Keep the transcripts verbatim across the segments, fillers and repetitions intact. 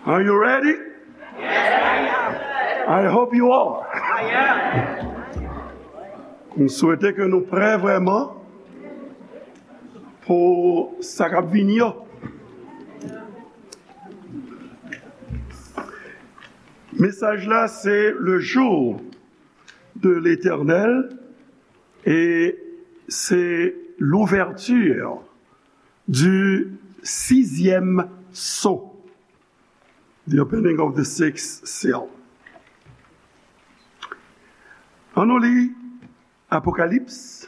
Are you ready? I hope you are. M swete ke nou prè vrèman pou sa k ap vini yo. Mesaj la se le jour de l'Éternel et c'est l'ouverture du sixième sceau. The opening of the sixth seal. Ann nou li Apokalips,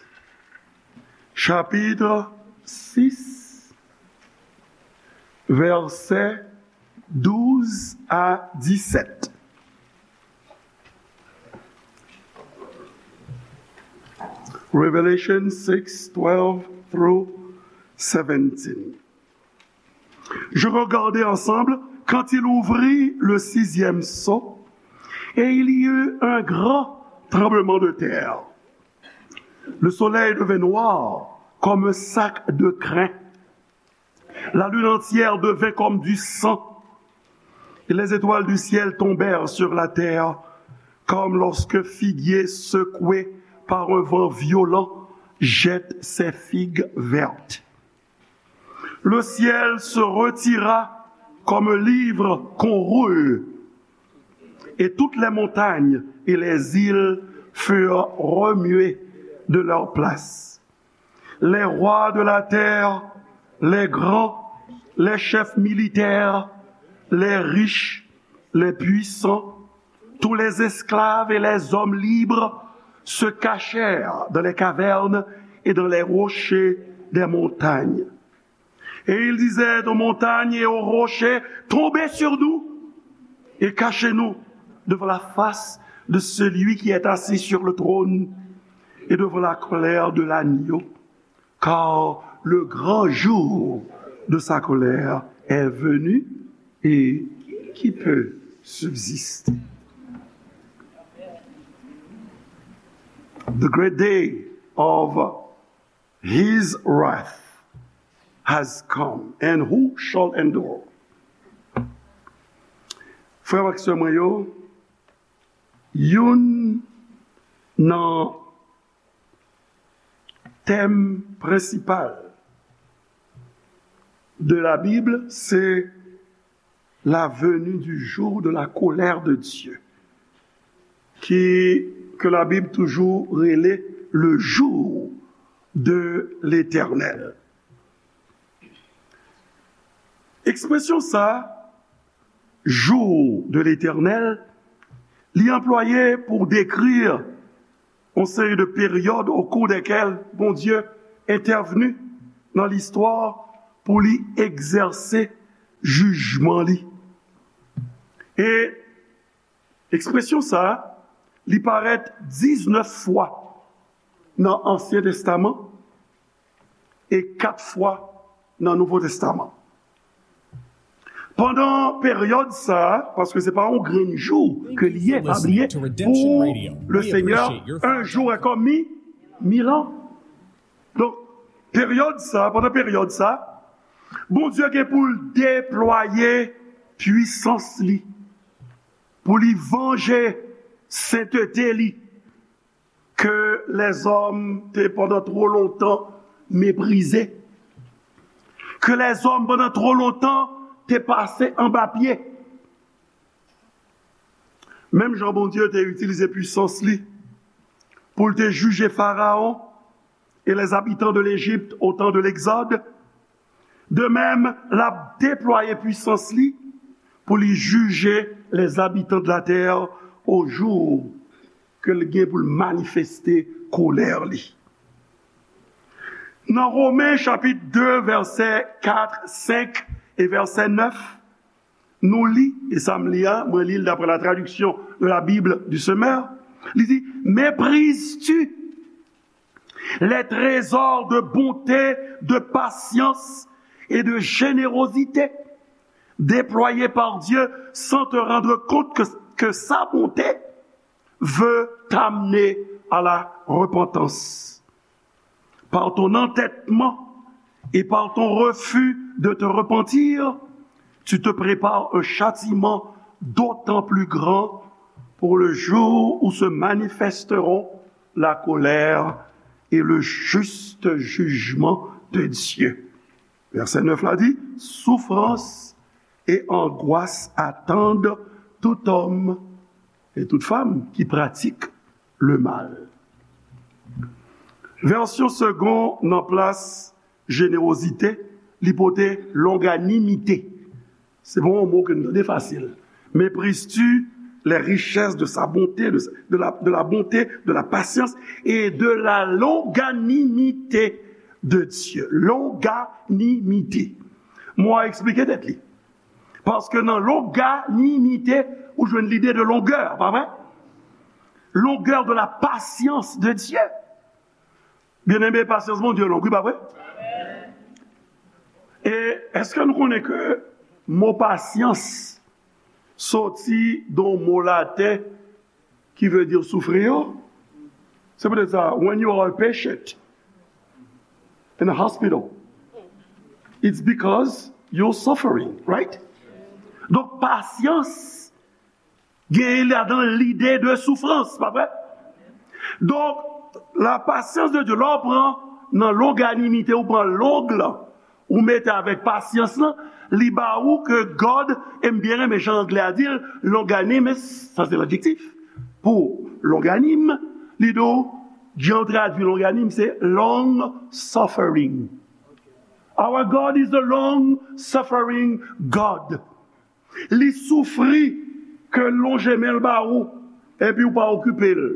chapitre six, vèsè douz a disèt. Revelation six, twelve through seventeen. Je regardai ensemble quand il ouvrit le sixième sceau, et il y eut un grand tremblement de terre. Le soleil devint noir comme un sac de crin. La lune entière devint comme du sang, et les étoiles du ciel tombèrent sur la terre, comme lorsque figuier secoué par un vent violent jette ses figues vertes. Le ciel se retira comme un livre qu'on roule, et toutes les montagnes et les îles furent remuées de leur place. Les rois de la terre, les grands, les chefs militaires, les riches, les puissants, tous les esclaves et les hommes libres se cachèrent dans les cavernes et dans les rochers des montagnes. Et ils disaient aux montagnes et aux rochers, tombez sur nous et cachez-nous devant la face de celui qui est assis sur le trône et devant la colère de l'agneau, car le grand jour de sa colère est venu, et qui peut subsister? The great day of his wrath has come, and who shall endure? Frè m ak sè mwen yo, youn nan tèm prensipal de la Bible, c'est la venue du jour de la colère de Dieu, qui, que la Bible toujours rele le jour de l'Éternel. Ekspresyon sa, jour de l'Éternel, li anplwaye pou dekri yon seri de peryòd au cours desquelles Bondye entèvni nan listwa pou li egzèse jijman li. E ekspresyon sa, li parèt diznèf fwa nan Ansyen Testaman e kat fwa nan Nouvo Testaman. Pandan peryòd sa, paske se pa yon grenn jou ke li ye, pa bliye, pour le Seigneur, un jour est comme mi-, mille ans. Donk, peryòd sa, pandan peryòd sa, Bondye gen pou l deplwaye pwisans li, pou li vanje sentete li, ke lèzòm te pandan twò lontan meprize, ke lèzòm pandan twò lontan te pase anba pye. Menm jan Bondye te itilize pwisans li pou l te jije Farawon e les habitants de l'Égypte au temps de l'Exode, de même, l ap deplwaye pwisans li pou li jije les habitants de la terre au jour ke l gen pou l manifeste kolè li. Nan Women chapit de, vèsè kat, senk e vèsè nèf, nou li, e sa m li a, mwen li l daprè la traduction de la Bible du Semeur, li di, Méprises-tu les trésors de bonté, de patience et de générosité déployés par Dieu sans te rendre compte que, que sa bonté veut t'amener à la repentance. Par ton entêtement et par ton refus de te repentir, Tu te prépares un châtiment d'autant plus grand pour le jour où se manifesteront la colère et le juste jugement de Dieu. Vèsè nèf la di, souffrance et angoisse attendent tout homme et toute femme qui pratique le mal. Vèsyon Segond nan plas jenerozite, li pote longanimite. Se pa yon mo ke nou tande fasil. Mépris-tu les richesses de sa bonté, de, de la, de la bonté, de la patience et de la longanimité de Dieu? Longanimite. Mo a eksplike tèt li. Paske nan longanimite, ou jwenn lide de longè, pa vre? Longueur de la patience de Dieu. Byeneme, pasyans Bondye long, wi, pa vre? E èske nou konnen ke mo pasyans soti de yon mo laten ki vle di soufri yo? Se poutèt sa, when you are a patient in a hospital, it's because you're suffering, right? Donk, pasyans genyen ladan lide de soufrans, pa vre? Donk, la patience de Dieu, lè w pran nan longanimite, ou pran long lan, ou mete avèk pasyans lan, li ba ou ke God, e m byen renmen jan anglè a di l, longanimous, sa se ladjektif, pou longanim, li di w, jan yo tradui longanim, se long suffering. Our God is a long suffering God. Li soufri ke l lonje men l ba ou, epi ou pa okipe l.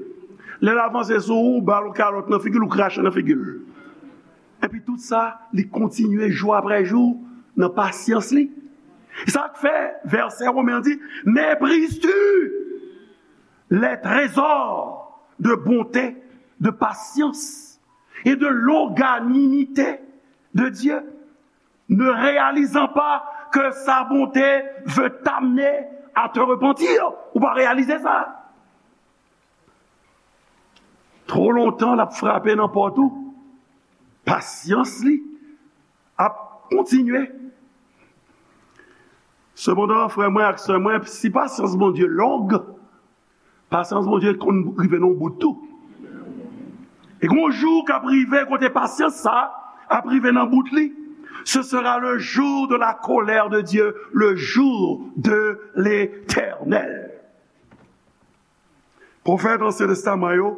Lè l avanse sou ou, ou ba l yon kalòt nan figi l, ou krache nan figi l. Epi tout sa, li kontinye jou apre jou nan pasyans li. Sa k fè vèsè Women an di, méprises-tu les trésors de bonté, de patience et de longanimité de Dieu? Ne réalisant pas que sa bonté veut t'amener à te repentir. Ou pa reyalize sa. Twò lontan, l ap frape nan pòt ou. Pasyans li ap kontinye. Sepandan, frè mwen ak sè mwen, si pasyans Bondye long, pasyans Bondye konn rive nan yon bout tou. E gon jou k ap rive kote pasyans sa ap rive nan bout li. Ce sera le jour de la colère de Dieu, le jour de l'Éternel. Pwofèt Ansyen Testaman yo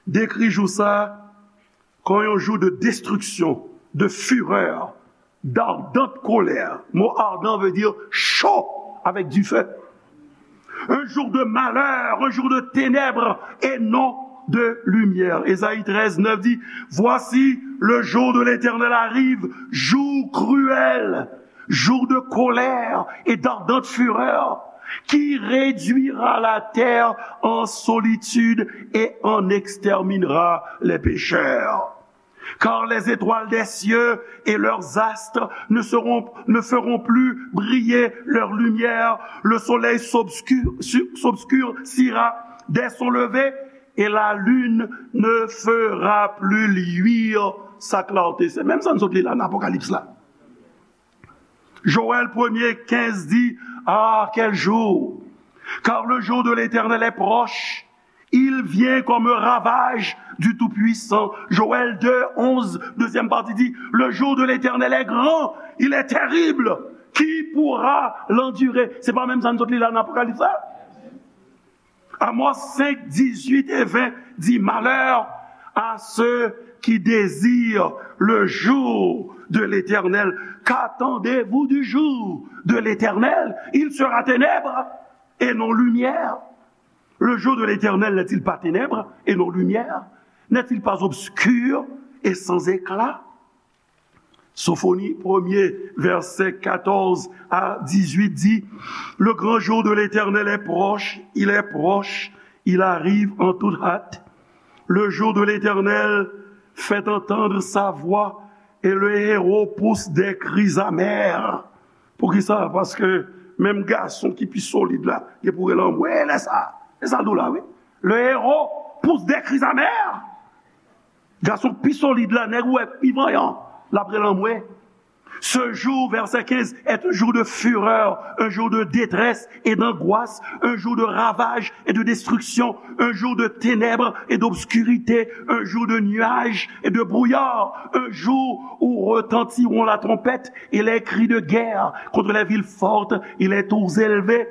dekri jou sa kon yon jou de destruction, de fureur, d'ardente colère. Mo ardent veut dire chaud, avec du feu. Un jour de malheur, un jour de ténèbres et non de lumière. Ésaïe treize neuf dit, voici, le jour de l'Éternel arrive, jour cruel, jour de colère et d'ardente fureur, qui réduira la terre en solitude et en exterminera les pécheurs. Car les étoiles des cieux et leurs astres ne seront, ne feront plus briller leur lumière. Le soleil s'obscur-, su-, s'obscurcira dès son lever et la lune ne fera plus luire sa clarté. Se menm sa n sot li la nan Apokalips la. Joël premier quinze dit, ah, quel jour! Car le jour de l'Éternel est proche. Il vient comme un ravage du Tout-Puissant. Joël deux onze, deuxième partie dit, le jour de l'Éternel est grand, il est terrible. Qui pourra l'endurer? Se pa menm sa n sot li la nan Apokalips la? Amos cinq, dix-huit et vingt dit, malheur à ceux qui désirent le jour de l'Éternel. Qu'attendez-vous du jour de l'Éternel? Il sera ténèbres et non lumière. Le jour de l'Éternel n'est-il pas ténèbres et non lumière? N'est-il pas obscur et sans éclat? Sofoni premye, vèsè katòz a dizuit di, le grand jour de l'Éternel est proche, il est proche, il arrive en toute hâte. Le jour de l'Éternel fait entendre sa voix et le héros pousse des cris amers. Poukisa? Paske menm gason ki pi solid la, gen pou rele anmwe lè sa. E sa l di w la, wi. Le héros pousse des cris amers. Gason pi solid la, nèg ou wè pi vanyan, l ap rele anmwe. Ce jour, verset quinze, est un jour de fureur, un jour de détresse et d'angoisse, un jour de ravage et de destruction, un jour de ténèbres et d'obscurité, un jour de nuages et de brouillard, un jour où retentiront la trompette et les cris de guerre contre les villes fortes et les tours élevées.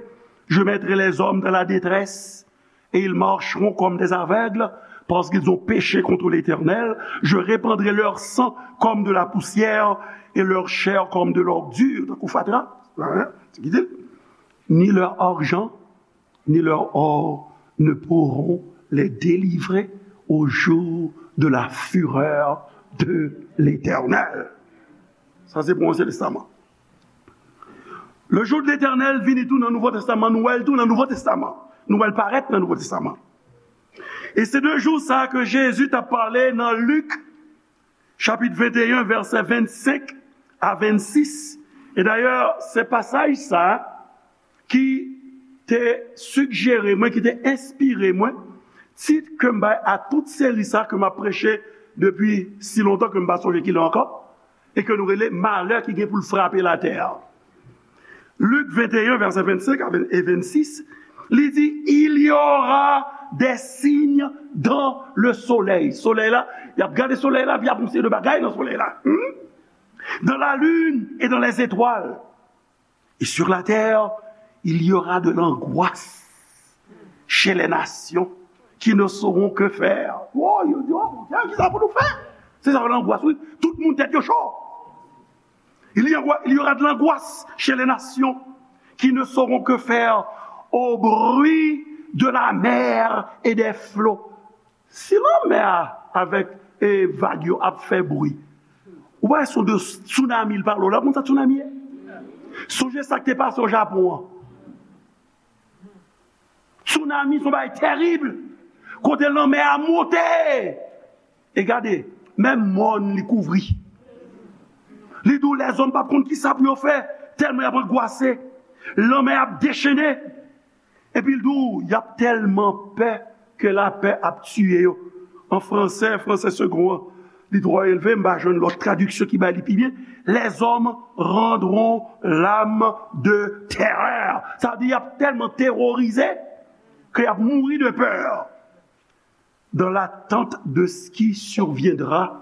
Je mettrai les hommes dans la détresse et ils marcheront comme des aveugles, parce qu'ils ont péché contre l'Éternel. Je répandrai leur sang comme de la poussière et leur chair comme de l'ordure. Tankou fatra, hein? Ni leur argent, ni leur or ne pourront les délivrer au jour de la fureur de l'Éternel. Sa se pou Ansyen Testaman. Le jour de l'Éternel vini tou nan Nouvo Testaman, nou wè l tou nan Nouvo Testaman. Nou wè l parèt nan Nouvo Testaman. E se de jou sa ke Jezi t ap pale nan Lik, chapit venteyen, vèsè vennsenk a vennsis. E dayè, se pasaj sa ki te sigjere mwen, ki te enspire mwen, tit ke m bay a tout seri sa ke m ap preche depi si lontan ke m pa sonje kilè ankò, e ke nou rele malè ki gen pou l frape latè a. Lik venteyen, vèsè vennsenk a ven-, e vennsis, li di, il y aura des signes dans le soleil. Solèy la, y ap gade solèy la, pi y ap yon seri de bagay nan solèy la. Hmm? Dans la lune et dans les étoiles. Et sur la terre, il y aura de l'angoisse chez les nations qui ne sauront que faire. Oh, yo di, oh, Bondye, ki sa pou nou fè? Se sa, langoas, wi. Tout moun tèt yo cho. Il y aura, il y aura de l'angoisse chez les nations qui ne sauront que faire au bruit de la mer et des flots. Si lanmè a avèk, e, vag yo ap fè bri, ou pa wè se de tsunami l pale w la, konn sa tsunami ye? Sonje sa k te pase o Japon an. Tsunami se yon bagay tèrib. Kote lanmè a monte. E gade, menm mòn li kouvri. Li di w lèzòm p ap konn ki sa pou yo fè, tèlman y ap angwase. Lanmè ap dechennen. Epi l di w, y ap tèlman pè ke lapè ap tiye yo. An fransè, fransè segon an, li twò elve, m pa jwenn lòt tradiksyon ki bay li pi byen. Les hommes rendront l'âme de terreur. Sa vle di, y ap tèlman teworize ke y ap mouri de pè. Dans l'attente de ce qui surviendra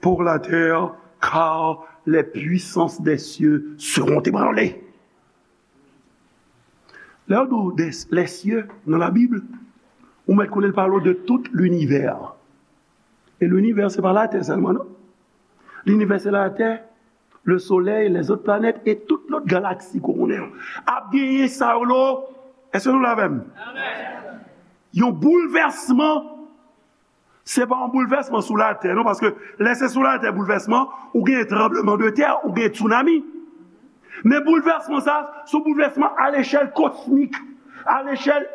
pour la terre, car les puissances des cieux seront ébranlées. Lè yo di w des, les cieux nan Labib, ou mèt konnen l pale w de tout linivè. E linivè, se pa Latè sèlman, non. Linivè, se Latè, le Soleil, les autres planètes et tout lòt galaksi ke w konnen yo. Ap genyen sa yo lo. Èske nou la avè m? Yon boulvèsman, se pa yon boulvèsman sou latè, non, paske lè se sou latè boulvèsman, ou gen tranbleman de tè, ou gen tsunami. Men boulvèsman sa, se yon boulvèsman a lechèl kosmik, a lechèl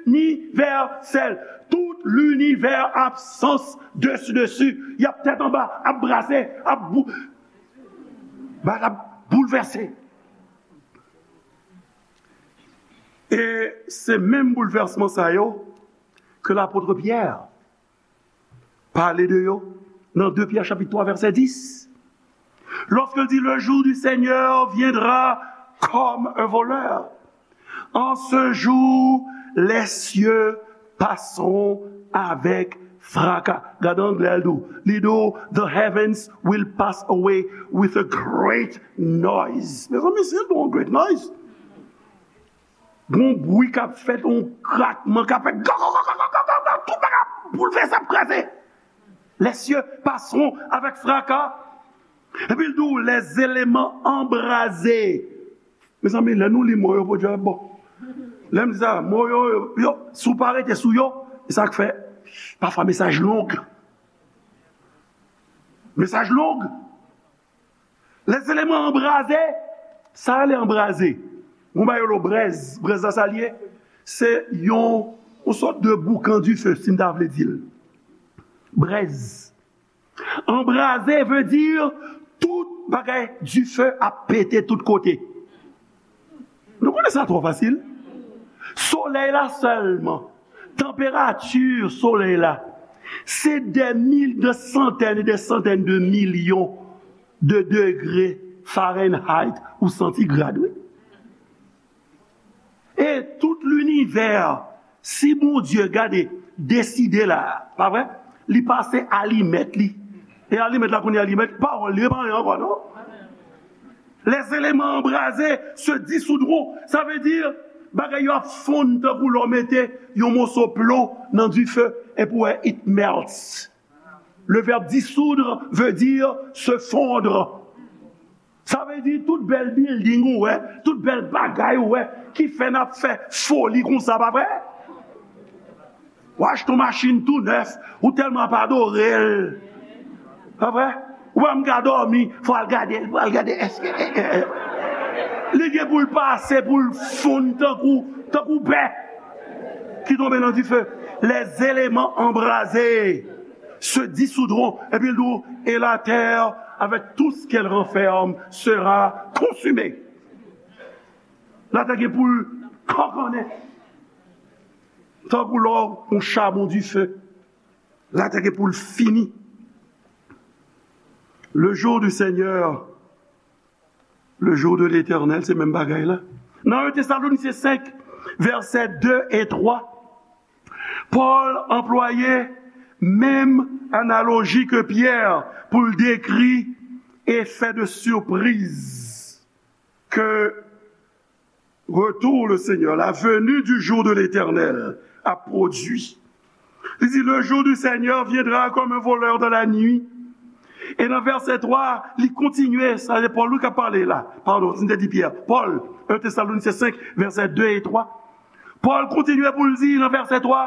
inivèsèl. Tout linivè ap sans desi desi, y ap tèt anba, ap brase, ap bou-, ba l ap boulvèse. E se menm boulvèsman sa yo ke lapot Pyè pale de yo nan de Pyè chapit twa vèsè dis. Lorsqu'il dit, le jour du Seigneur viendra comme un voleur. En ce jour, les cieux passeront avec fracas. Gade anglè l di w. Li di w, the heavens will pass away with a great noise. Mezanmi, se yon great noise. Gon bri k ap fèt, yon krakman k ap fèt, tout bagay ap boulvèse, ap kraze. Les cieux passeront avec fracas. Epi l di w, les éléments embrasés. Mezanmi, lè nou li mo yo, pwodui a bon. Lè m di sa, mo yo, yo, yo, si w pa rete sou yo, e sa k fè, pafwa mesaj long. Mesaj long. Les éléments embrasés, sa rele anbraze. Gon bagay yo lo brèz, brèz la sa l ye? Se yon, yon sòt de boukan dife, si m ta vle di l. Brèz. Anbraze vle di tout bagay dife ap pete tout kote. Nou konnen sa twò fasil. Solèy la sèlman, tanperati solèy la, se dè mil, dè santèn e dè santèn de milyon de degre Fahrenheit ou santigrad, wi. E tout linivè, si Bondye gade, deside la, pa vre? Li pase alimèt li. E alimèt la kounye a, alimèt, pawòl li, e pa anyen ankò, non? Les éléments embrasés se dissoudront. Sa vle di, bagay yo ap fonn tankou lè w mete yon moso plon nan dife, epi w wè, it melts. Le verbe dissoudre veut dire se fondre. Sa vle di tout bèl bilding ou wè, tout bèl bagay ou wè, ki fè n ap fè foli konsa, pa vre? Ou achte yon machin tou nèf, ou tèlman ap adore l. Pa vre? Ou pa menm ka dòmi, fò al gade l, fò al gade èske, eh, eh, eh. Li gen pou l pase, pou l fonn tankou, tankou bè ki tonbe nan dife. Les éléments embrasés se dissoudront. Epi l di w, et la terre, avec tout ce qu'elle renferme, sera consumée. Latè gen pou l kankannen. Tankou lò yon chabon dife. Latè gen pou l fini. Le jour du Seigneur, le jour de l'Éternel, se menm bagay la. Nan un Thessaloniciens cinq, verset deux et trois, Pòl anplwaye menm analoji ke Pyè pou l dekri efè de sipriz ke retour le Seigneur, la venue du jour de l'Éternel, a produit. Li di, le jour du Seigneur viendra comme un voleur dans la nuit. E nan vèsè twa, li kontinye, sa se Pòl wi k ap pale la. Padon, si m te di Pyè. Pòl, un Thessaloniciens cinq, verset deux et trois. Pòl kontinye pou l di nan vèsè twa,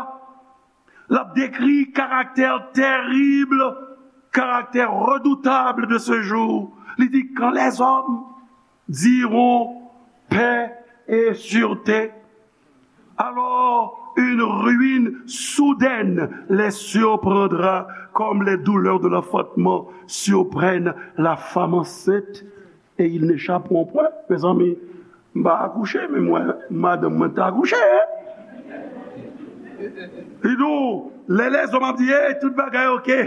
l ap dekri karaktè terib, karaktè redoutab de ce jour. Li di, quand les hommes diront paix et sûreté, alors une ruine soudaine les surprendra comme les douleurs de l'enfantement surprennent la femme enceinte et ils n'échapperont point. Mezanmi, m pa akouche, men mwen, madanm mwen t akouche, hein? Li di w, lè lèzòm ap di, hey, tout bagay oke.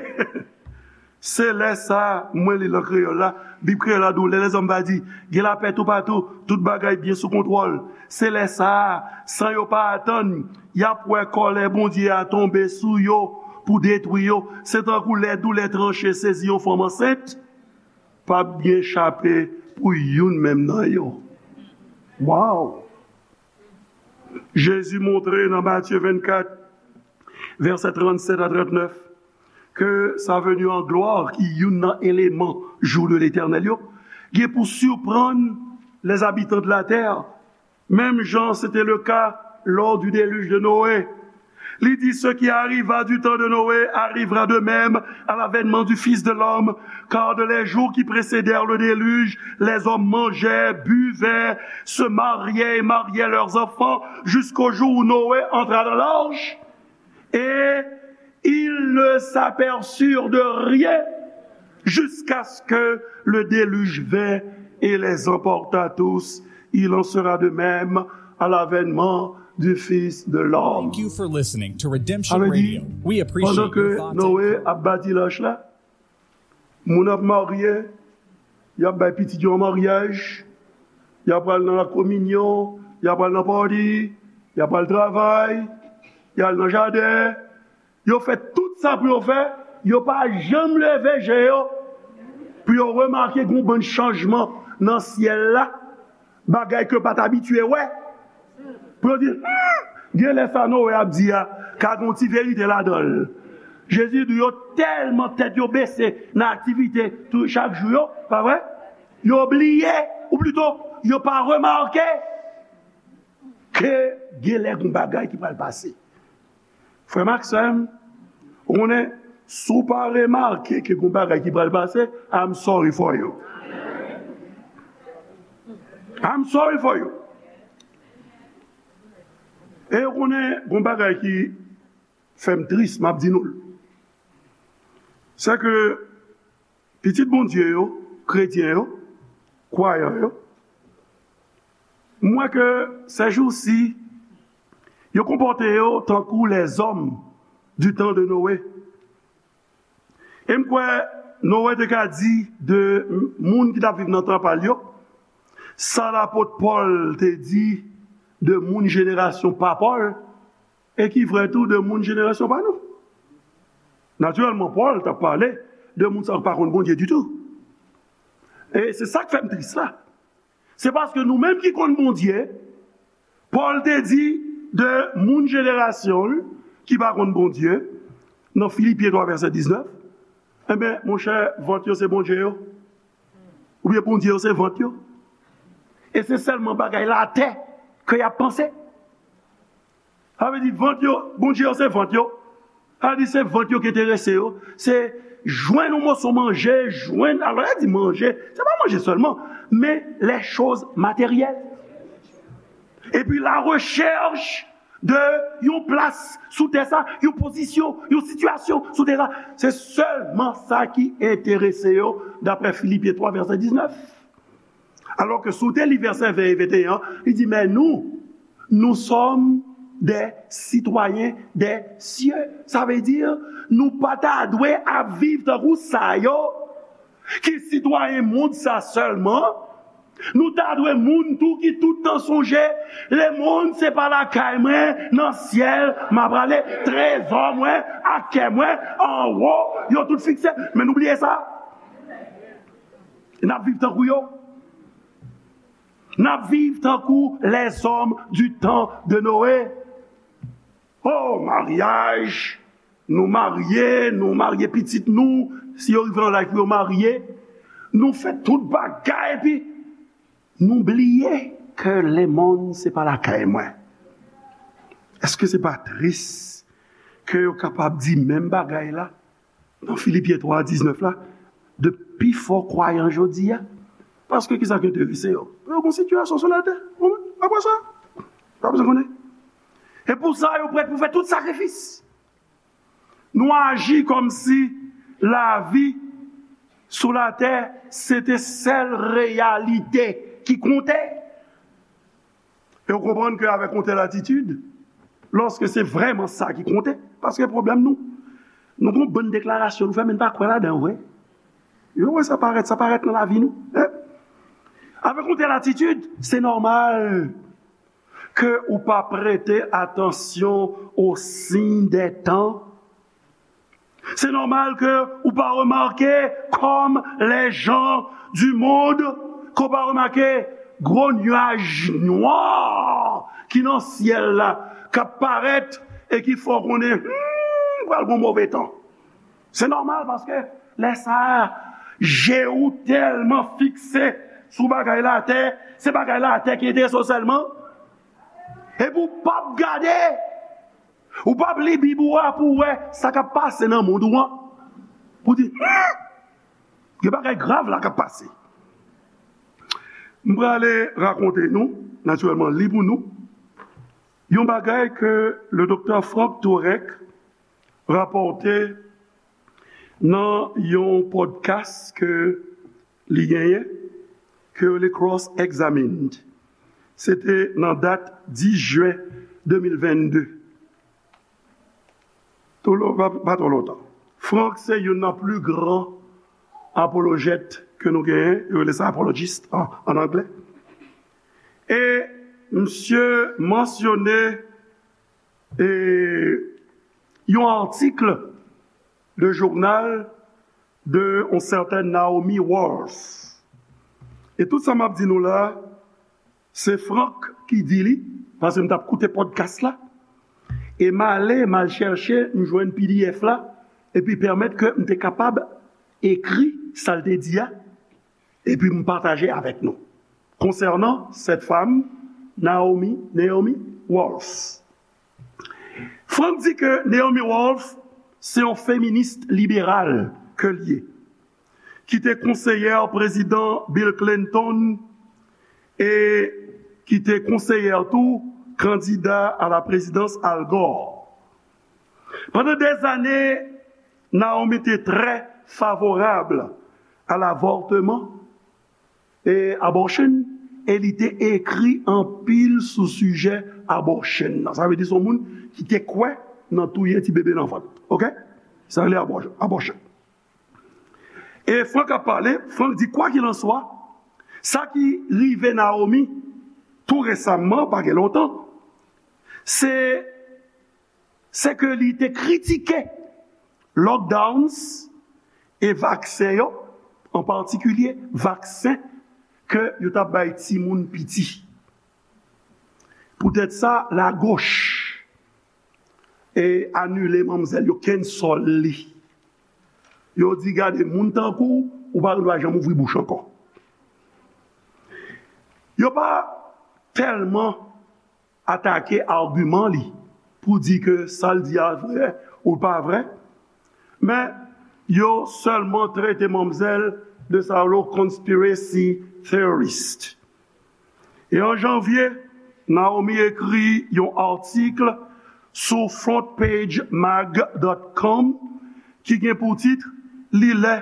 Se lè sa a, mwen li l an kreyòl la, Bib kreyòl la di w, lè lèzòm va di, gen lapè toupatou, tout bagay byen sou kontwòl. Se lè sa a, san yo pa atann, y ap wè kòlè Bondye a tonbe sou yo pou detwi yo. Se tankou lè doulè tranche sezi yon fanm ansent, p ap gen chape pou youn menm nan yo. Waw! Jezi montre nan Matye vennkat, vèsè trannsèt a trannèf, ke sa veni an glwa ki youn nan eleman jou de Letènèl yo, gen pou siprann les habitants de la terre, menm jan se te le ka lò du déluge de Noé. Li di, ce qui arriva du temps de Noé arrivera de même à l'avènement du Fils de l'homme, car de les jours qui précédèrent le déluge, les hommes mangeaient, buvaient, se mariaient et mariaient leurs enfants jusqu'au jour où Noé entra dans l'arche. Et ils ne s'aperçurent de rien jusqu'à ce que le déluge vint et les emporta tous. Il en sera de même à l'avènement du Fils de l'homme. Thank you for listening to Redemption Radio. We appreciate your thoughts and prayers. Pandan ke Noe ap bati lach la, moun ap marye, y ap bay pitit yo an maryaj, y ap pral nan lakominyon, y ap pral nan pati, y ap pral travay, y al nan jaden. Yo fè tout sa pou yo fè, yo pa janm leve je yo pou yo remake gen yon bann chanjman nan syèl la, bagay ke yo pa t abitye wè. Pou yo di, hmm, gen lè sa Noe ap di a ka gen yon ti verite ladan l. Jezi di yo tèlman tèt yo bese nan aktivite tou chak jou yo, pa vre? Yo bliye, ou plito, yo pa remake ke gen lè gen yon bagay ki pral pase. Frè m ak sè m, ou konnen, si w pa remake ke gen yon bagay ki pral pase, I'm sorry for you. I'm sorry for you. E ou konnen, gen yon bagay ki fè m tris, m ap di nou l. Se ke pitit Bondye yo, kretyen yo, kwayan yo, m wè ke sèjousi, yo konpòte yo tankou lèzòm du temps de Noé. E m kwè, Noe te ka di de moun ki t ap viv nan tan pa l yo, sa lapot Pòl te di de moun jenerasyon pa Pòl, e ki vrè tou de moun jenerasyon pa nou. Natirèlman, Pòl t ap pale de moun sa yo ki pa konn Bondye ditou. E se sa k fè m tris la. Se paske nou menm ki konn Bondye, Pòl te di de moun jenerasyon l ki pa konn Bondye, nan Filipyen twa vèsè diznèf, enben, monchè, vant yo se Bondye yo. Oubyen Bondye yo se vant yo. E se sèlman bagay latè ke y ap panse. Sa vle di vant yo, Bondye yo se vant yo. Sa vle di se vant yo ki enterese yo. Se jwenn yon moso manje, jwenn, alò, lè di manje, se pa manje sèlman, men les choses matérielles. Epi la rechèch de yon plas sou tè sa, yon pozisyon, yon sitiyasyon sou tè sa. Se sèlman sa ki enterese yo, daprè Filipyen twa vèsè diznèf. Alò ke si w te li vèsè ven e venteyen an, li di, men nou, nous sommes des citoyens des cieux. Sa vle di, nou pa ta dwe ap viv tankou sa yo, ki sitwayen mond sa sèlman. Nou ta dwe moun tou ki tout tan sonje, lemonn se pa lakay mwen, nan syèl m a prale, trezò mwen ak kè mwen anwo, yo tout fikse. Men nou bliye sa. N ap viv tankou yo. N ap viv tankou les hommes du temps de Noé. Oh, maryaj! Nou marye, nou marye pitit nou, si yo rive nan laj pou yo marye, nou fè tout bagay, epi nou bliye ke lemonn se pa lakay mwen. Èske se pa tris ke yo kapab di menm bagay la nan Filipyen twa diznèf la, de pifò kwayan jodi a? Paske ki sa ki enterese yo? Yo gon sitiyasyon sou latè. Apre sa, pa bezwen konnen. E pou sa, yo prèt pou fè tout sakrifis. Nou aji kòmsi lavi sou latè se te sèl reyalite ki konte. E w konprann ke avèk yon tèl atitid, lòske se vrèman sa ki konte, paske pwoblèm nou, nou gon bann deklarasyon nou fè, men n pa kwè ladan yo vre. Yo wè sa parèt, sa parèt nan lavi nou. Avèk yon tèl atitid, se nòmal ke ou pa prete atansyon aux signes des temps. Se nòmal ke ou pa remake, comme les gens du monde, ke w pa remake gwo nyaj nwa ki nan syèl la, k ap parèt e ki fè w konnen, hmm, pral gon move tan. Se nòmal paske lè sa a, je ou tèlman fikse sou bagay latè, se bagay latè ki enterese w sèlman. Epi w p ap gade, ou p ap li Bib ou a pou w wè sa k ap pase nan mond ou an. Pou w di, hmm, gen bagay grav la k ap pase. M prale rakonte nou, natirèlman, li pou nou, yon bagay ke le doktè Frank Turek rapòte nan yon podcast ke li genyen, ke yo rele Cross Examined. Se te nan dat dis jen de mil vennde. Tou lo-, pa, pa twò lontan. Frank se youn nan pli gran apolojèt ke nou genyen, yo rele sa apologist an, an anglè. E misye mansyone, e, yon atik de jounal de yon sètèn Naomi Wolf. E tout sa m ap di nou la, se Frank ki di li, paske m t ap koute podcast la, e m ale, m al chèche, m jwenn P D F la, epi pèmèt ke m te kapab ekri sa l te di a, epi m pataje avèk nou. Konsènan cette femme, Naomi, Naomi Wolf. Frank di ke Naomi Wolf se yon feminis liberal ke l ye, ki te konseyè prezidan Bill Clinton e ki te konseyè tou kandida a la prezidans Al Gore. Pandan dèzane, Naomi te trè favorab a l'avortement e abortion, e li te ekri anpil sou sijè abortion nan. Sa vle di se yon moun ki te kwè nan touye ti bebe nan vant. Oke? Sa rele abò-, abortion. E Frank ap pale, Frank di, kwakilanswa, sa ki rive Naomi tou resaman, pa gen lontan, se, se ke li te kritike lockdowns e vaksen yo, an patikilye vaksen ke yo t ap bay timoun piti. Poutèt sa, lagoch e anile manmzèl yo, cancel li. Yo di, gade, moun tankou w, ou pa gen dwa janm ouvri bouch ankò. Yo pa tèlman atake agiman li pou di ke sa l di a vrè ou pa vrè, men yo sèlman trete manmzèl de sa yo rele conspiracy theorist. E an janvye, Naomi ekri yon atik sou front page mag dot com ki gen pou tit, Li lè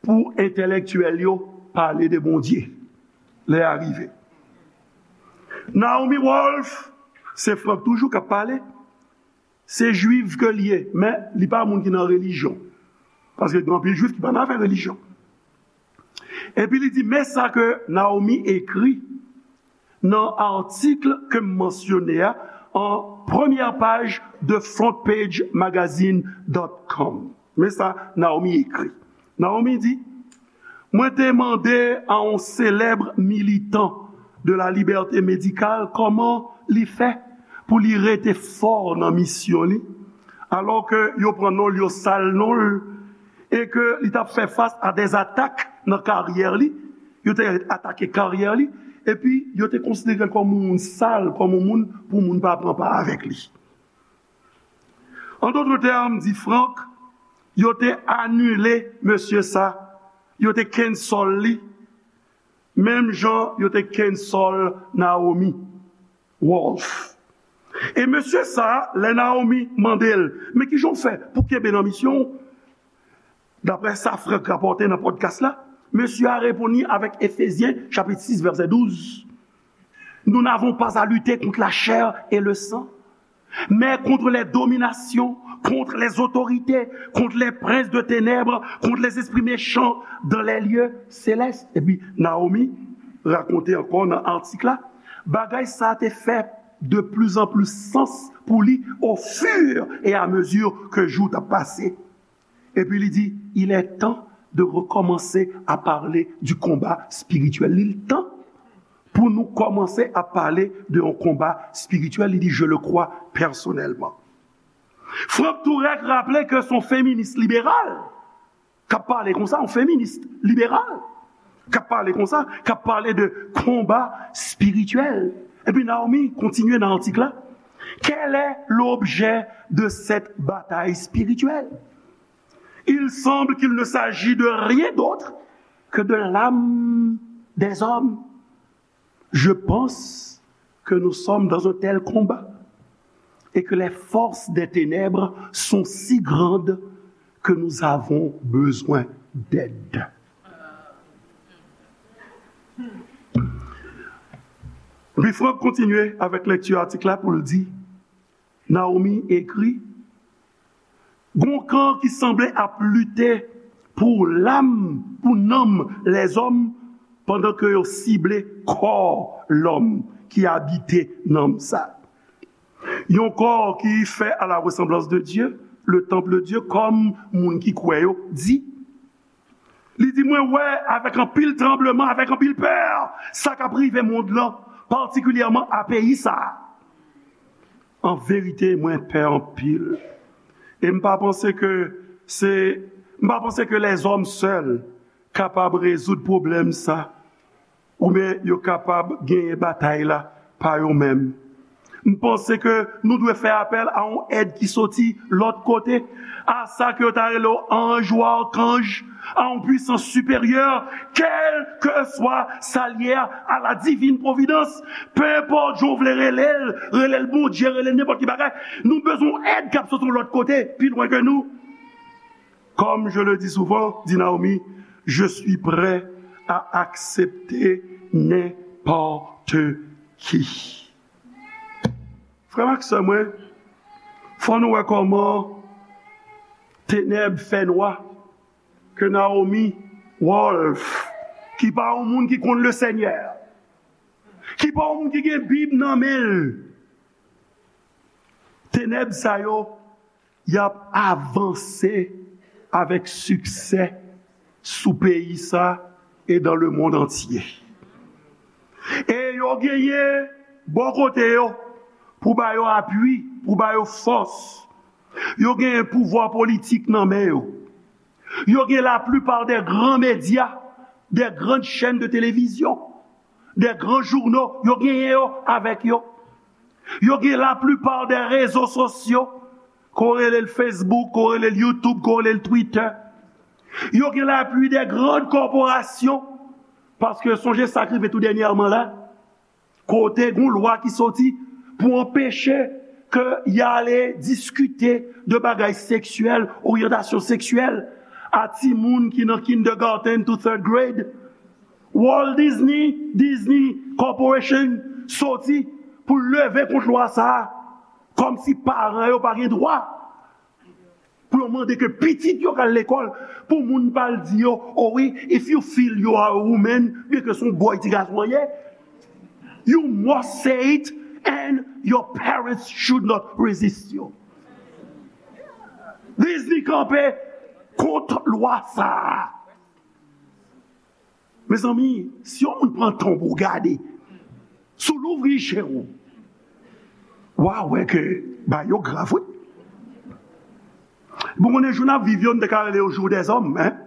pou entèlektyèl yo pale de Bondye. Lè a rive. Naomi Wolf, se Frank toujou k ap pale, se jwif ke l ye, men li pa moun ki nan relijyon. Paske gen anpil jwif ki pa nan afè relijyon. Epi li di, men sa ke Naomi ekri nan atik ke m mansyone a an premyè paj de front page magazine dot com. Men sa Naomi ekri. Naomi di, mwen te mande a yon selèb militan de la liberté médicale kòman li fè pou li rete fò nan misyon li, alò ke yo pran non l, yo sal non l, e ke li t ap fè fas a dè atak nan karyè li, yo te atake karyè li, epi yo te konsidere l kòm yon moun sal, kòm yon moun pou moun pa pran pa avèk li. An dòt tèm, di Frank, yo te anile mesye sa, yo te cancel li, menm jan yo te cancel Naomi Wolf. E mesye sa, lè Naomi mande l, men kijan w fè pou kenbe nan misyon w? Daprè sa Frank rapòte nan podcast la, mesye a reponn li avèk Efezyen chapit sis vèsè douz. Nous n'avons pas à lutter contre la chair et le sang, mais contre les dominations, contre les autorités, contre les princes de ténèbres, contre les esprits méchants dans les lieux célestes. Epi Naomi rakonte ankò nan atik la, bagay sa te fè de plus en plus sans pou li au fur et à mesure que jou t ap pase. Epi li di, il est temps de recommencer à parler du combat spirituel. Li tan pou nou kòmanse ap pale de yon konba espirityèl, li di, je le crois personnellement. Frank Tourek raple ke se yon feminis liberal k ap pale konsa, yon feminis liberal k ap pale konsa, k ap pale de konba espirityèl. Epi Naomi kontinye nan atik la, quel est l'objet de cette bataille spirituelle? Il semble qu'il ne s'agit de rien d'autre que de l'âme des hommes. Je pense que nous sommes dans un tel combat et que les forces des ténèbres sont si grandes que nous avons besoin d'aide. Epi Frank kontinye avèk lekti atik la pou l di, Naomi ekri, gon kan ki sanble ap lite pou lam, pou nanm lèzòm, pandan ke yo sible kò lòm ki abite nanm sa. Yon kò ki fè à la ressemblance de Dieu, le temple de Dieu, kòm moun ki kwè yo di. Li di, mwen wè avèk anpil tranbleman, avèk anpil pè, sa k ap rive mond lan, patikilyèman a peyi sa a. An verite, mwen pè anpil. E m pa panse ke se, m pa panse ke lèzòm sèl kapab rezoud pwoblèm sa, oubyen yo kapab genyen batay la pa yo menm. M panse ke nou dwe fè apèl a yon èd ki soti lòt kote, a sa ke yo ta rele yo anj ou akanj, a yon pwisans siperyè, kèlkeswa sa l ye a, à la divine providence, pe enpòt jan w vle rele l, rele l Bondye, rele l nenpòt ki bagay, nou bezwen yon èd k ap soti yon lòt kote, pi lwen ke nou. Comme je le dis souvent, dit Naomi, je suis prêt à accepter n'importe qui. Frè m ak sè mwen, fò nou wè kòman tenèb fè nwa. ke Naomi Wolf, ki pa yon moun ki konn Lesenyè, ki pa yon moun ki gen Bib nan men l, tenèb sa yo, y ap avanse avèk siksè sou peyi sa e dans le monde entier. E yo genyen bò kote yo pou ba yo apui, pou ba yo fòs. Yo genyen pouvwa politik nan men yo. Yo gen la plupart des grands médias, des grandes chaînes de télévision, des grands journaux. Yo genyen yo avèk yo. Yo gen la plupart des réseaux sociaux, ke w rele l Facebook, ke w rele l YouTube, ke w rele l Twitter. Yo gen l'appui des grandes corporations, paske sonje sa k rive tou dènyèman la, kote gon lwa ki soti pou anpeche ke y ale diskite de bagay seksyèl, oryantasyon seksyèl a timoun ki nan kindergarten to third grade. Walt Disney, Disney Corporation soti pou leve kont lwa sa a, kòmsi paran yo pa gen dwa pou yo mande ke pitit yo k al lekòl, pou moun pa al di yo, "Oh wi, if you feel you are a woman," byen ke se yon bòy ti gason an ye, "you must say it and your parents should not resist you." Disney kanpe kont lwa sa a. Mezanmi, si yon moun pran tan pou w gade, si w louvri je w, w a wè ke bagay yo grav, wi. Bon, konnen jou n ap viv yo, n te ka rele yo jou dèzòm, en.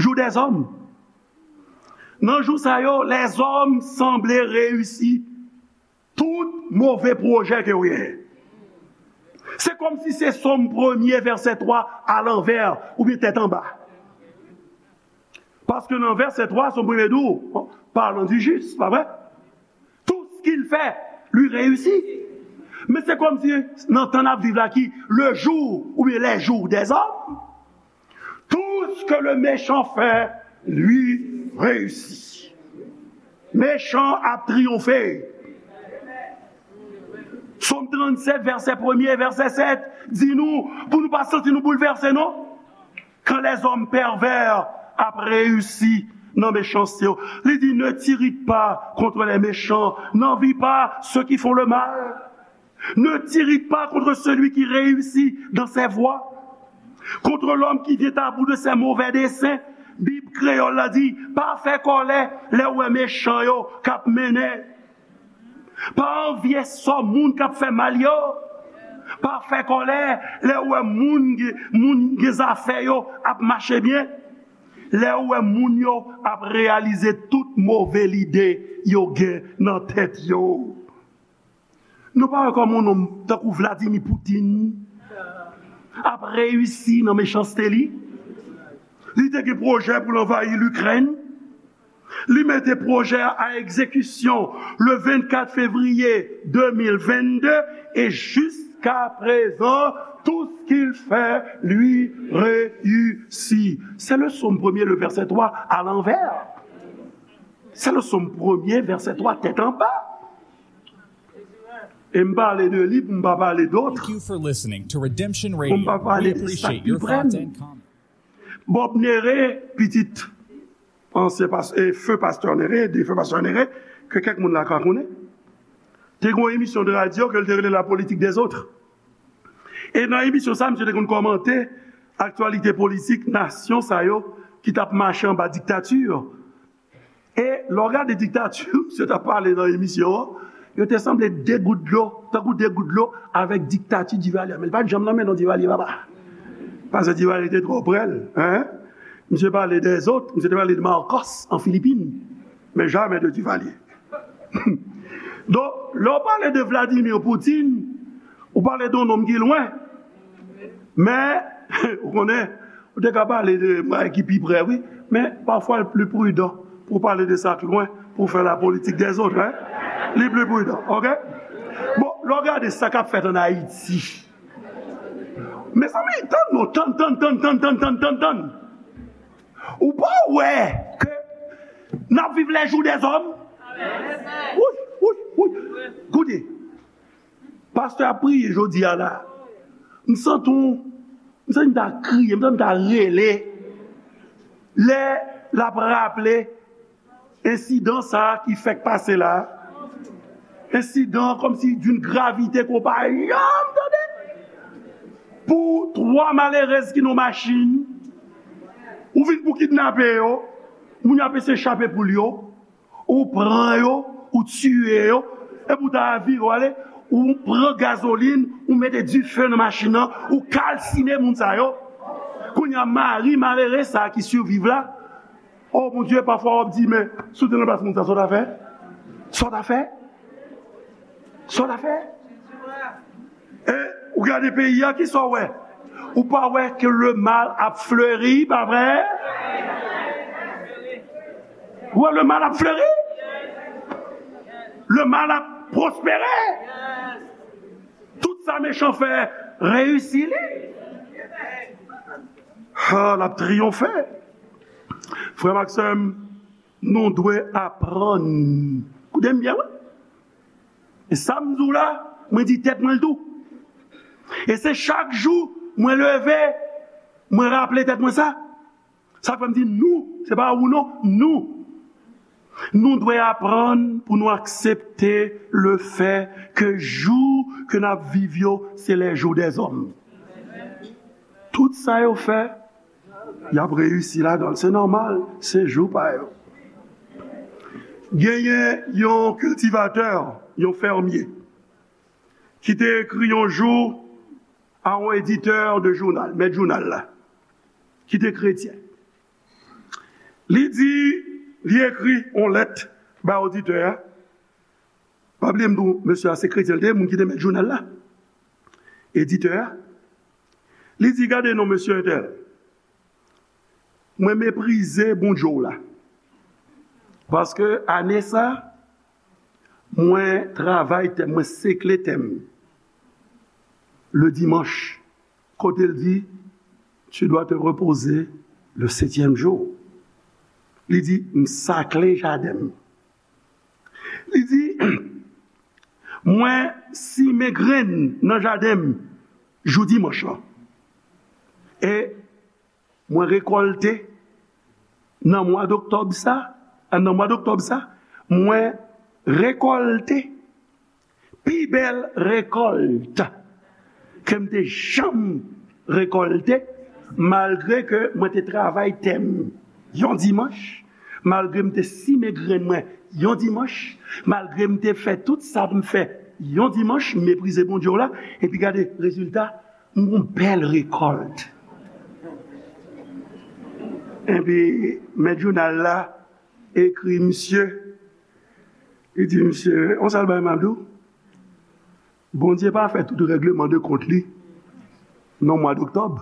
Jou dèzòm. Nan jou sa yo, lèzòm sanble reyisi tout move pwojè ke w genyen. Se kòmsi se Sòm premye, vèsè twa, alanvè oubyen tèt anba. Paske nan vèsè twa, Sòm premye di w, parlant du juste, pa vre? Tout ce qu'il fait lui réussit. Men se kòmsi nan tan n ap viv la ki le jour oubyen les jours des hommes, tout ce que le méchant fait lui réussit. Mechan ap triyonfe. Sòm trannsèt, vèsè premye, vèsè sèt, di nou, pou nou pa santi nou boulvèse, non. Quand les hommes pervers ap reyisi nan mechanste yo, li di, ne t'irrite pas contre les méchants, n'envie pas ceux qui font le mal. Ne t'irrite pas contre celui qui réussit dans ses voies, contre l'homme qui vient à bout de ses mauvais desseins. Bib kreyòl la di, pa fè kòlè lè w wè mechan yo k ap mennen. Pa anvye sò moun k ap fè mal yo. Pa fè kòlè lè w wè moun, moun gen zafè yo ap mache byen. Lè w wè moun yo ap reyalize tout move lide yo gen nan tèt yo. Nou pa wè kòman yon nonm tankou Vladimir Putin ap reyisi nan mechanste li? Li te gen pwojè pou l anvayi Likrèn. Li mete pwojè a a egzekisyon le vennkat fevriye de mil vennde e jiskaprezan, tout ce qu'il fait lui réussit. Se le Sòm premye, le vèsè twa, alanvè. Se le Sòm premye, vèsè twa, tèt anba. E m pale de li pou m pa pale dòt. Thank you for listening to Redemption Radio. Pou m pa pale de sa k pi prè m. Bob Néré, pitit ansyen pas-, e, feu pastè Néré, défunt pastè Néré, ke kèk moun la ka konnen, te gen yon emisyon de radyo ke l te rele La politique des autres. E nan emisyon sa, misye te konn kòmante aktyalite politik nasyon sa yo ki t ap mache anba diktati. E lè w gade diktati, misye t ap pale nan emisyon an, yo te sanble de gout dlo, tankou de gout dlo avèk diktati Divalye. Men li pa t janm nan men non Divalye, papa. Paske Divalye te twò prè l, en. Misye pale dèzòt, misye te pale de Marcos an Filipin, men jamè de Divalye. Donk, lè w pale de Vladimir Putin, ou pale de yon nonm ki lwen. Men, ou konnen, ou te ka pale de bagay ki pi prè, wi. Men, pafwa, l pli pridan pou w pale de sa k lwen, pou w fè la politique des autres, en. Li pli pridan, oke? Bon, lè w gade sa k ap fèt ann Ayiti, mezanmi, tann non, tann, tann, tann. Ou pa wè ke n ap viv les jours des hommes? Wi, wi, wi. Koute, pastè ap priye jodi a la. M santi yon, M santi m ta kriye, m santi m ta rele. Lè l ap raple ensidan sa a ki fèk pase la, ensidan kòmsi d'une gravité ke w pa janm tande. Pou twa malerèz ki nan machin, ou vin pou kidnape yo, moun yo ap eseye chape poul yo, ou pran yo, ou tiye yo, epi ou ta vire w ale, ou pran gazolin, ou mete dife nan machin nan, ou kalsine moun sa yo. Kounye a, mari malere sa a ki siviv la, o Bondye, pafwa w ap di, men, si w te nan plas moun sa, sa w ta fè? Sa w ta fè? Sa w ta fè? E ou gade peyi a, kisa w wè? Ou pa wè ke le mal ap fleri, pa vre? Ou wè le mal ap fleri? Le mal ap pwospere. Tout sa mechan fè reyisi li. Ha, l ap triyonfe. Frè m ak sè m, nou dwe aprann. Koute m byen, wi. E sa m di w la, mwen di tèt mwen l tou. E se chak jou mwen leve, mwen raple tèt mwen sa. Sa k fè m di nou, se pa ou non, nou. Nou dwe aprann pou nou aksepte le fè ke jou ke n ap viv yo, se les jours des hommes. Tout sa yo fè, y ap reyisi ladan l. Se nòmal, se jou pa yo. Genyen yon kiltivatè, yon fèmye, ki te ekri yon jou a yon editè de jounal, mèt jounal la, ki te kretyen. Li di, li ekri yon lèt bay oditè a. Pa bliye m di w, mesye a se kretyen l te ye, moun ki te mèt jounal la. Editè a. Li di, gade non, mesye entèl. Mwen meprize Bondye w la. Paske ane sa, mwen travay tè m, mwen sekle tè m. Le dimanche, kote l di, tu dois te reposer le septième jour. Li di, m sakle jaden m. Li di, mwen simen grenn nan jaden m jou dimanch lan. E mwen rekòlte nan mwa doktòb sa, nan mwa doktòb sa, mwen rekòlte pi bèl rekòlt ke m te janm rekòlte, malgre ke mwen te travay tè m yon dimanch, malgre m te simen grenn mwen yon dimanch, malgre m te fè tout sa pou m fè yon dimanch, m meprize Bondye w la, epi gade rezilta, m gon bèl rekòlt. Epi, mèt jounal la ekri misye, li di misye, on sèl bagay m ap di w, Bondye pa fè tout règleman de kont li nan mwa doktòb.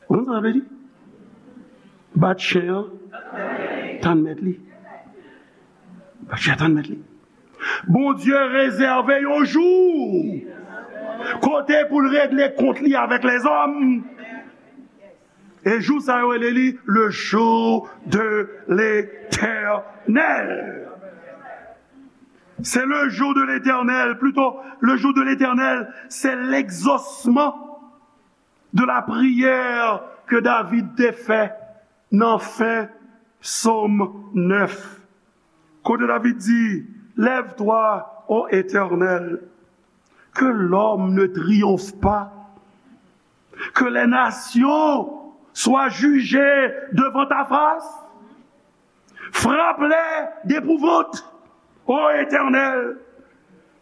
Ou konn sa sa vle di? Bat chen an, tann mèt li. Bat chen an, tann mèt li. Bondye rezève yon jou kote pou l regle kont li avèk lèzòm. E jou sa yo rele li le jour de l'Éternel. C'est le jour de l'Éternel, plutôt le jour de l'Éternel, c'est l'exaucement de la prière que David te fè nan fen Sòm nèf. Kote David di, lève-toi, ô Éternel, que l'homme ne triomphe pas, que les nations soient jugées devant ta face. Frappe-les d'épouvante, ô Éternel,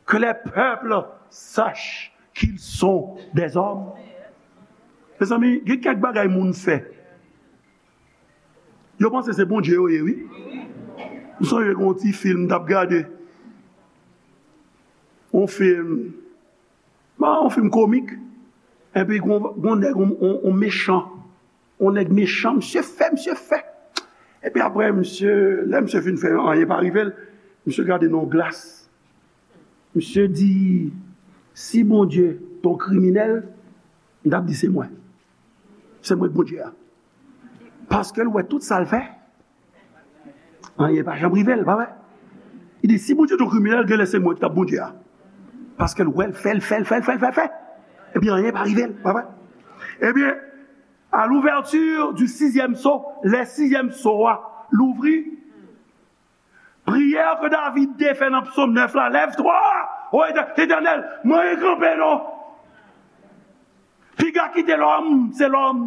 que les peuples sachent qu'ils sont des hommes. Mezanmi, gen kèk bagay moun fè. Yo panse se Bondye yo ye, wi. M sonje gen yon ti fim m t ap gade. Yon fim, bon, yon fim komik. Epi gon, gon nèg, yon, yon, yon mechan. Yon nèg mechan, misye fè, misye fè. Epi apre, misye, lè misye fin fè, anyen pa rive l, misye gade nan yon glas. Misye di, si Bondye t on kriminèl, m t ap di se mwen. Se mwen k Bondye a. Paske l wè tout sa l fè, anyen pa janm rive l, pa vre? Li di, si Bondye t on kriminèl, genlè se mwen ki t ap Bondye a. Paske l wè l fè, l fè, l fè, l fè, l fè, l fè. Ebyen, anyen pa rive l, pa vre? Ebyen, à l'ouverture du sixième sceau, lè sizyèm so a louvri, priyè ke David te fè nan Psaume neuf la, lève-toi, ô Étè-, Éternel, mwen kanpe non. Piga kite lòm, se lòm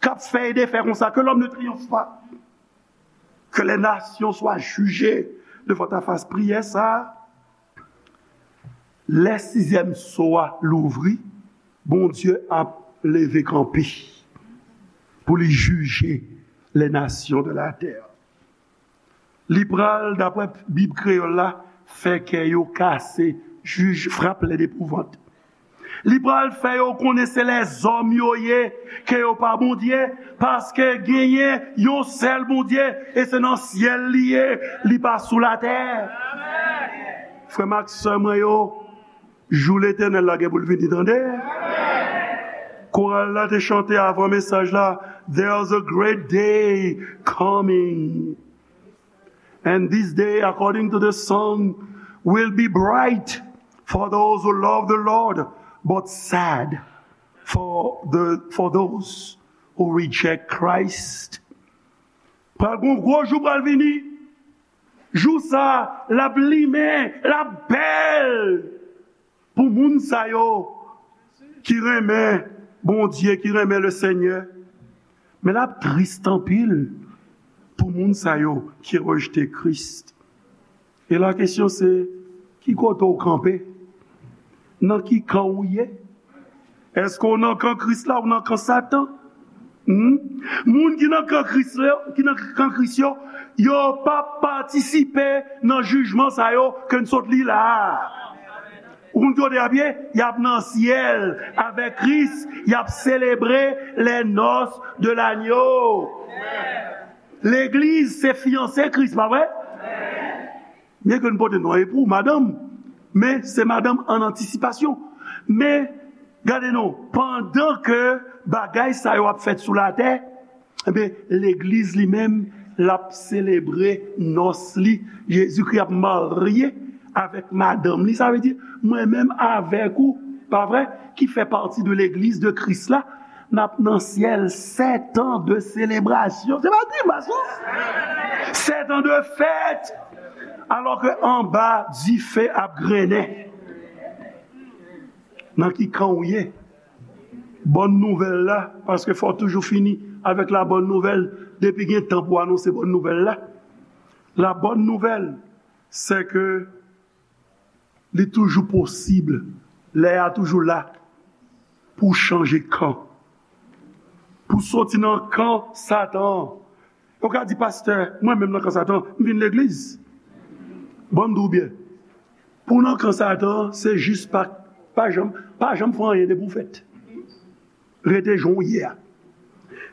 k ap fè e defè konsa, que l'homme ne triomphe pas. Que les nations soient jugées devant ta face. Priyè sa, lè sizyèm so a louvri, Bondye ap leve kanpe pou li jije les nations de la terre. Li pral, daprè Bib kreyòl la, fè kè yo kase, jij, frappe les d'epouvante. Li pral fè yo konnen se lèzòm yo ye, ke yo pa Bondye, paske genyen yon sèl Bondye, e se nan syèl li ye, li pa sou latè. Frè m ak sè mwen yo, jou Letènèl la gen pou l vini, tande. Koral la te chante avan mesaj la, "There's a great day coming." And this day, according to the song, will be bright for those who love the Lord, but sad for the, for those who reject Christ. Pral gon gwo jou pral vini. Jou sa, l ap limen, l ap bèl. Pou moun sa yo ki renmen Bondye, ki renmen le Senyè, men l ap tris anpil pou moun sa yo ki rejte Kris. E la kesyon se, ki kote w kanpe? Nan ki kan w ye? Èske w nan kan Kris la ou nan kan Satan? Hmm? Moun ki nan kan Kris yo, ki nan kan Kris yo, yo p ap patisipe nan jijman sa yo ke n sot li la a. Ou konn kote y ap ye? Y ap nan syèl avèk Kris, y ap selebre les noces de l'agneau. Legliz se fiyanse Kris, pa vre? Byen ke n pote non epou, madanm, men se madanm an antisipasyon. Men, gade non, pandan ke bagay sa yo ap fèt sou latè, ebyen, legliz li menm, l ap selebre nòs li. Jezikri ap marye avèk madanm li. Sa vle di, mwen menm avèk ou, pa vre, ki fè pati de legliz de Kris la, n ap nan syèl sèt an de selebrasyon. Se pa grimas, non? Sèt an de fèt! Alò ke anba, dife ap grennen. Nan ki kan w ye? Bòn nouvèl la, paske fò w toujou fini avèk la bòn nouvèl. Depi gen tan pou anonse bòn nouvèl la. La bòn nouvèl, se ke li toujou posib, lè a toujou la pou w chanje kan. Pou w soti nan kan Satan an. Ou ka di, "Pastè, mwen menm nan kan Satan, m vin legliz." Bon, m di w byen. Pou w nan kan Satan, se jis pa, pa janm, pa janm fè anyen depi w fèt. Rete jan w ye a.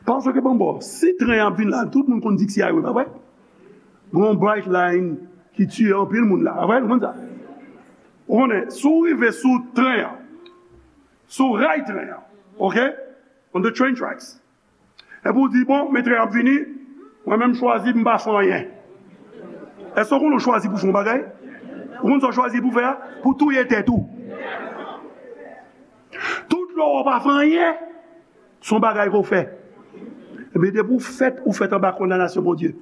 Paske, bon, bon, si tren an ap vin la, tout moun konn di ki se highway, pa vre? Gon bright line ki tiye anpil moun la, pa vre? Nou konn sa. Ou konnen, si w rive sou tren an, sou ray tren an, ok? On the train tracks. Epi w di, "Bon, men tren an ap vini, mwen menm chwazi m pa fè anyen." Èske w konnen w chwazi pou fè yon bagay? Ou konn sa w chwazi pou fè a? Pou touye tèt ou. Tout lè w pa fè anyen, se yon bagay ke w fè. Men depi w fèt, ou fèt anba kondanasyon Bondye.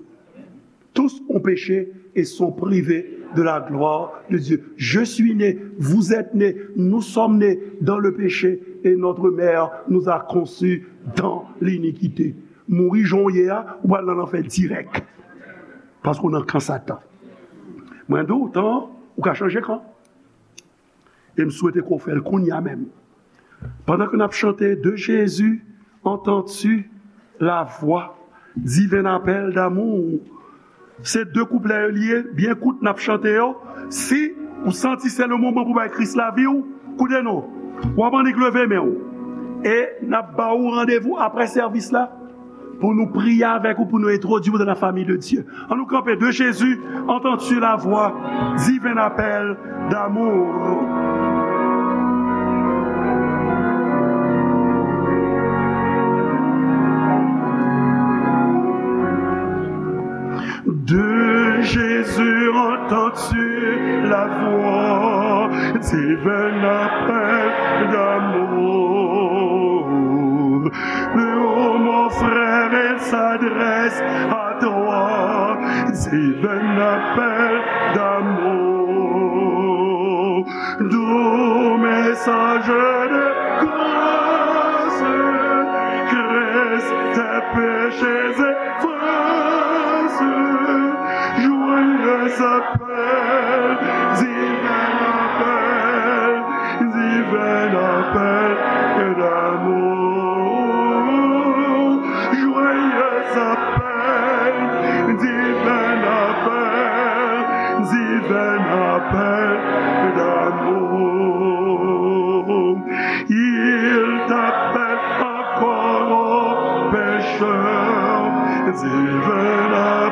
Tous ont péché et sont privés de la gloire de Dieu. Je suis né, vous êtes nés, nous sommes nés dans le péché et notre mère nous a conçus dans l'iniquité. Mouri jan w ye a, ou pral nan lanfè dirèk. Paske w nan kan Satan. Mwen di w, tan, ou ka chanje kan. E m swete ke w fè l kounye a menm. Pandan ke n ap chante, de Jésus entends-tu la voix, divin appel d'amour. Se de kouplè yo li ye, byen kout n ap chante yo. Si ou santi se le moman pou bay Kris lavi w, koute non. W ap annik leve men w. E n ap ba ou randevou apre sèvis la pou nou priye avèk ou, pou nou entwodui w dans la famille de Dieu. An nou kanpe, de Jésus, entends-tu la voix, divin appel d'amour. De Jésus, entends-tu la voix, Divin appel d'amour. Oh, mon frère, il s'adresse à toi. Divin appel d'amour. Doux message de grâce. Christ, tes péchés efface. Joyeux appel, divin appel, divin appel d'amour. Joyeux appel, divin appel, divin appel d'amour. Il t'appelle encore au pécheur, divin appel.